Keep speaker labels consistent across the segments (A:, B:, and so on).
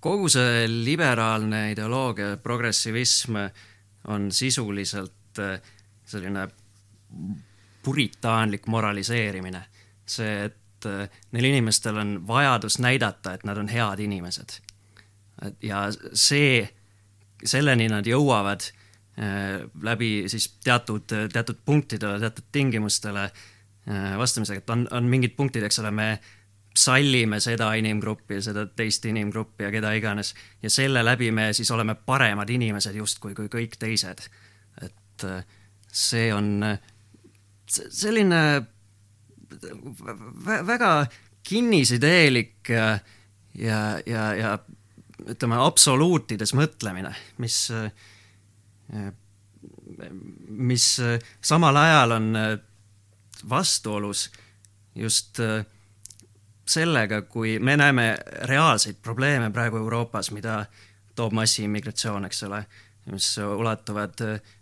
A: Kogu see liberaalne ideoloogia, progressivism on sisuliselt selline puritaanlik moraliseerimine. See, et neil inimestel on vajadus näidata, et nad on head inimesed. Ja selleni nad jõuavad läbi siis teatud punktidele, teatud tingimustele vastamisega, et on mingid punktid, eks ole, me sallime seda inimgruppi, seda teist inimgruppi ja keda iganes, ja selle läbi me siis oleme paremad inimesed justkui kui kõik teised. Et see on selline väga kinnisideelik ja ütleme absoluutides mõtlemine, mis samal ajal on vastuolus just sellega, kui me näeme reaalseid probleeme praegu Euroopas, mida toob massiimmigratsioon, eks ole, mis ulatuvad,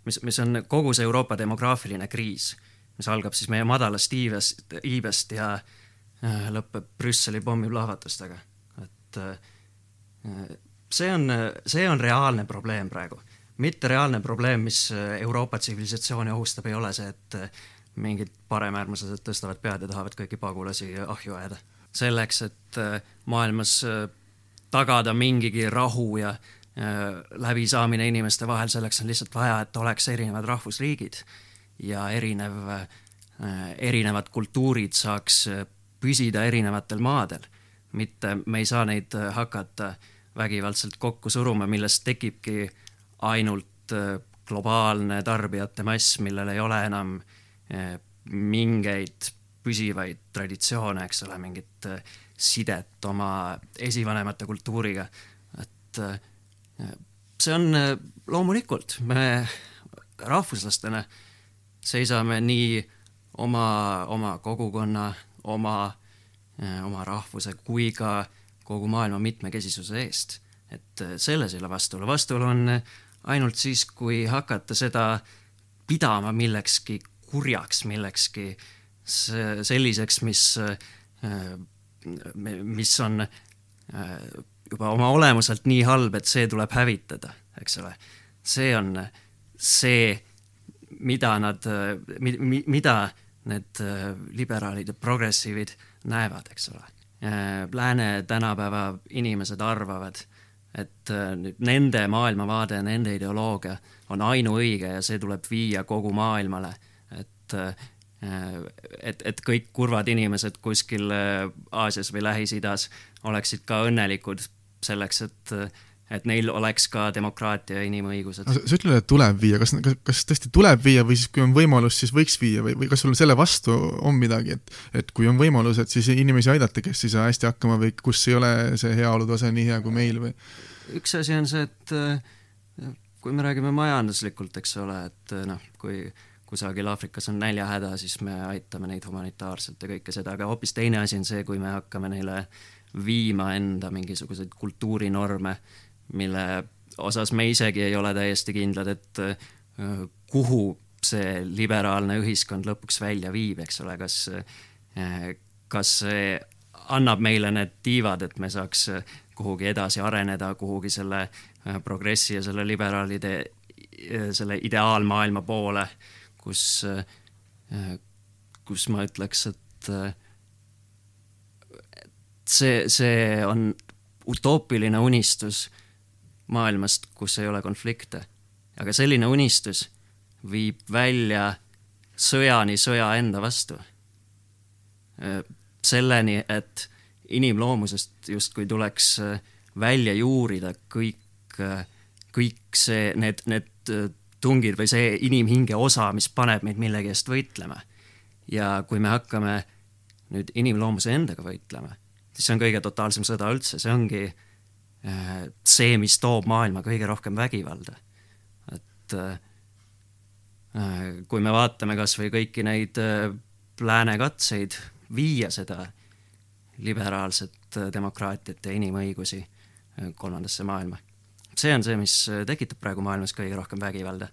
A: mis on kogu see Euroopa demograafiline kriis, mis algab siis meie madalast iibest ja lõpeb Brüsseli pommiplahvatustega. Et see on reaalne probleem praegu. Mitte reaalne probleem, mis Euroopa tsivilisatsiooni ohustab, ei ole see, et mingid paremäärmuslased tõstavad pead ja tahavad kõiki pagulasi ahju ajada. Selleks, et maailmas tagada mingigi rahu ja läbisaamine inimeste vahel, selleks on lihtsalt vaja, et oleks erinevad rahvusriigid ja erinevad kultuurid saaks püsida erinevatel maadel. Mitte me ei saa neid hakata vägivaldselt kokku suruma, millest tekibki ainult globaalne tarbijate mass, millel ei ole enam mingeid püsivaid traditsioone, eks ole, mingit sidet oma esivanemate kultuuriga. Et see on loomulikult, me rahvuslastena seisame nii oma kogukonna, oma rahvuse kui ka kogu maailma mitmekesisuse eest. Et selles ei ole vastuolu. Vastuolu on ainult siis, kui hakata seda pidama millekski kurjaks, millekski selliseks, mis on juba oma olemuselt nii halb, et see tuleb hävitada, eks ole. See on see, mida need liberaalid ja progressiivid näevad, eks ole. Lääne tänapäeva inimesed arvavad, et nende maailmavaade, nende ideoloogia on ainuõige ja see tuleb viia kogu maailmale, et kõik kurvad inimesed kuskil Aasias või Lähis-Idas oleksid ka õnnelikud selleks, et neil oleks ka demokraatia ja inimõigused.
B: Sa ütled, et tuleb viia. Kas tõesti tuleb viia või siis kui on võimalus, siis võiks viia või kas sul selle vastu on midagi, et kui on võimalus, et siis inimesi aidata, kes ei saa hästi hakkama või kus ei ole see heaolutase nii hea kui meil või?
A: Üks asi on see, et kui me räägime majanduslikult, eks ole, et kui kusagil Aafrikas on näljahäda, siis me aitame neid humanitaarselt ja kõike seda, aga hoopis teine asi on see, kui me hakkame neile viima enda mingisuguseid kultuurinorme, mille osas me isegi ei ole täiesti kindlad, et kuhu see liberaalne ühiskond lõpuks välja viib, eks ole, kas see annab meile need tiivad, et me saaks kuhugi edasi areneda, kuhugi selle progressi ja selle liberaalide selle ideaalmaailma poole, kus ma ütleks, et see on utoopiline unistus maailmast, kus ei ole konflikte. Aga selline unistus viib välja sõjani sõja enda vastu. Selleni, et inimloomusest justkui tuleks välja juurida kõik see, need tungid või see inimhinge osa, mis paneb meid millegi eest võitlema. Ja kui me hakkame nüüd inimloomuse endaga võitlema, siis see on kõige totaalsem sõda üldse. See ongi see, mis toob maailma kõige rohkem vägivalda. Et kui me vaatame kas või kõiki neid lääne katseid viia seda liberaalset demokraatiat ja inimõigusi kolmandasse maailma. See on see, mis tekitab praegu maailmas kõige rohkem vägivalda.